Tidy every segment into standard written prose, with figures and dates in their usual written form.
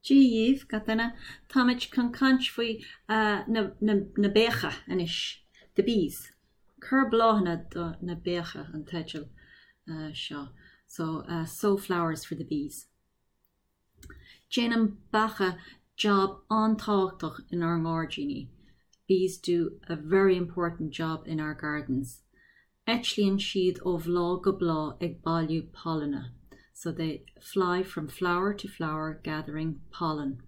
Dia dhíbh, gach duine. Táimid chun caint faoi na beacha anois, the bees. Cuir bláthanna do na beacha an teideal seo. So, sow flowers for the bees. Déanann beacha jab an-tábhachtach inár ngairdíní. Bees do a very important job in our gardens. Eitlíonn siad ó bhláth go bláth ag bailiú pailine, so they fly from flower to flower gathering pollen,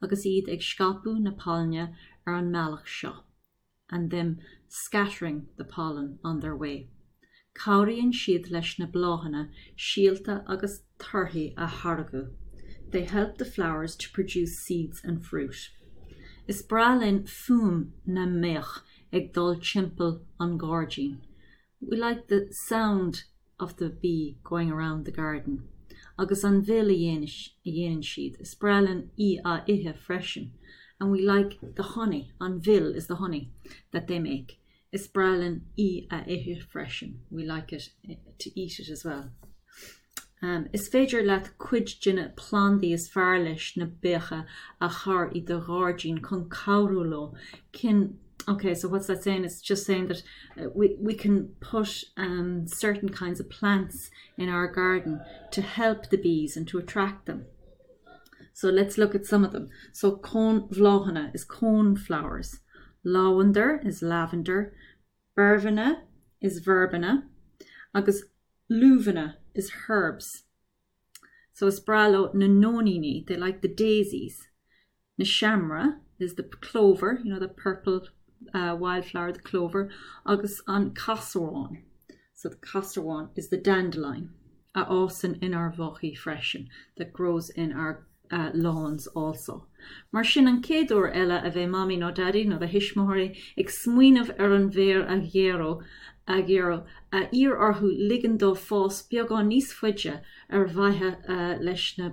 agus iad ag scaipeadh na pailine ar an mbealach seo, and them scattering the pollen on their way. Cabhraíonn siad leis na bláthanna síolta agus torthaí a tháirgeadh, they help the flowers to produce seeds and fruit. Is breá linn fuaim na mbeach ag dul timpeall an ghairdín. We like the sound of the bee going around the garden. Agus an mhil a dhéanann siad, is breá linn í a ithe freisin. And we like the honey, an mhil is the honey that they make. Is breá linn í a ithe freisin, we like it to eat it as well. Is féidir leat cuid de na plandaí is fearr leis na beacha a chur i do ghairdín chun cabhrú leo. Can Okay, so what's that saying? It's just saying that we, we can put um, certain kinds of plants in our garden to help the bees and to attract them. So let's look at some of them. So cónbhláthanna is cone flowers. Lavender is lavender. Beirbhine is verbena. Agus luibheanna is herbs. So is breá leo na nóiníní, they like the daisies. Na seamra is the clover, you know, the purple uh, wildflower, the clover, agus an casarán. So the casarán is the dandelion a fhásann inár bhfaichí freisin, that grows in our uh, lawns also. Mar sin an chéad uair eile a bheidh Mamaí nó Daidí nó do thuismitheoirí ag smaoineamh ar an bhféar a ghearradh, a ghearradh, iarr orthu ligean dó fás beagán níos faide ar mhaithe leis na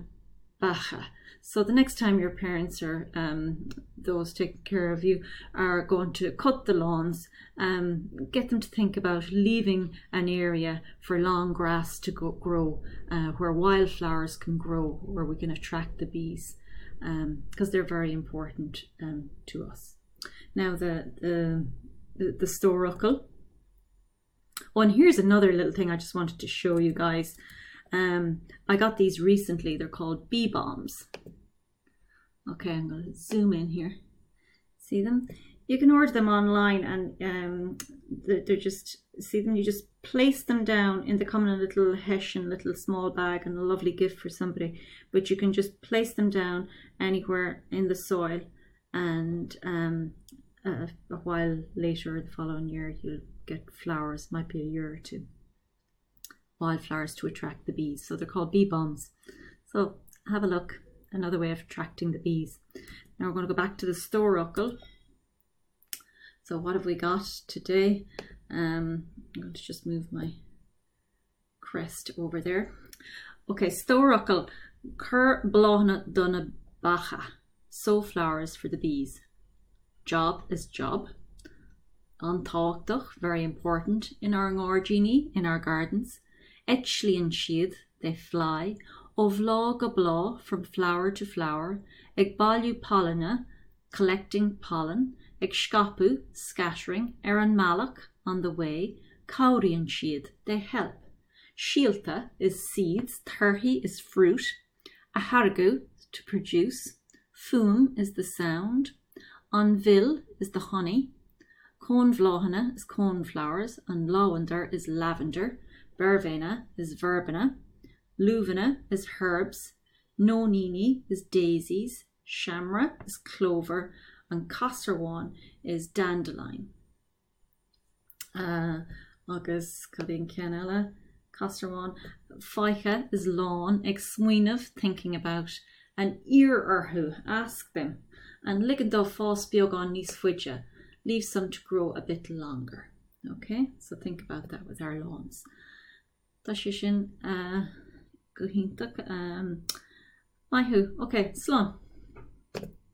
beacha. So the next time your parents or um, those taking care of you are going to cut the lawns, um, get them to think about leaving an area for long grass to go, grow, uh, where wildflowers can grow, where we can attract the bees, because um, they're very important um, to us. Now the the the, the stór fhocal. Oh, and here's another little thing I just wanted to show you guys. Um, I got these recently. They're called bee bombs. Okay, I'm going to zoom in here. See them? You can order them online and um, they're, they're just, see them? You just place them down in the come in a little hessian, little small bag and a lovely gift for somebody. But you can just place them down anywhere in the soil and um, a, a while later the following year you'll get flowers, might be a year or two wildflowers to attract the bees. So they're called bee bombs. So have a look, another way of attracting the bees. Now we're going to go back to the stór fhocal. So what have we got today? Um, I'm going to just move my crest over there. Okay, stór fhocal, cuir bláthanna do na beacha. Sow flowers for the bees. Job is job. An-tábhachtach, very important, inár ngairdíní, in our gardens. Eitlíonn siad, they fly, ó bhláth go bláth, from flower to flower, ag bailiú pailine, collecting pollen, ag scaipeadh, scattering, ar an mbealach, on the way, cabhraíonn siad, they help. Síolta is seeds, torthaí is fruit, a tháirgeadh, to produce, fuaim is the sound, an mhil is the honey, cónbhláthanna is coneflowers, an labhandar is lavender, beirbhéine is verbena, luibheanna is herbs, nóiníní is daisies, seamra is clover, an casarmháin is dandelion. Uh, agus cad é an ceann eile? Casarmháin. Faiche is lawn ag smaoineamh thinking about and iarr orthu ask them and ligean dó fás beagán níos faide leave some to grow a bit longer. Okay, so think about that with our lawns. Tá sé sin uh, go hiontach. Um, maith thú. Okay, slán.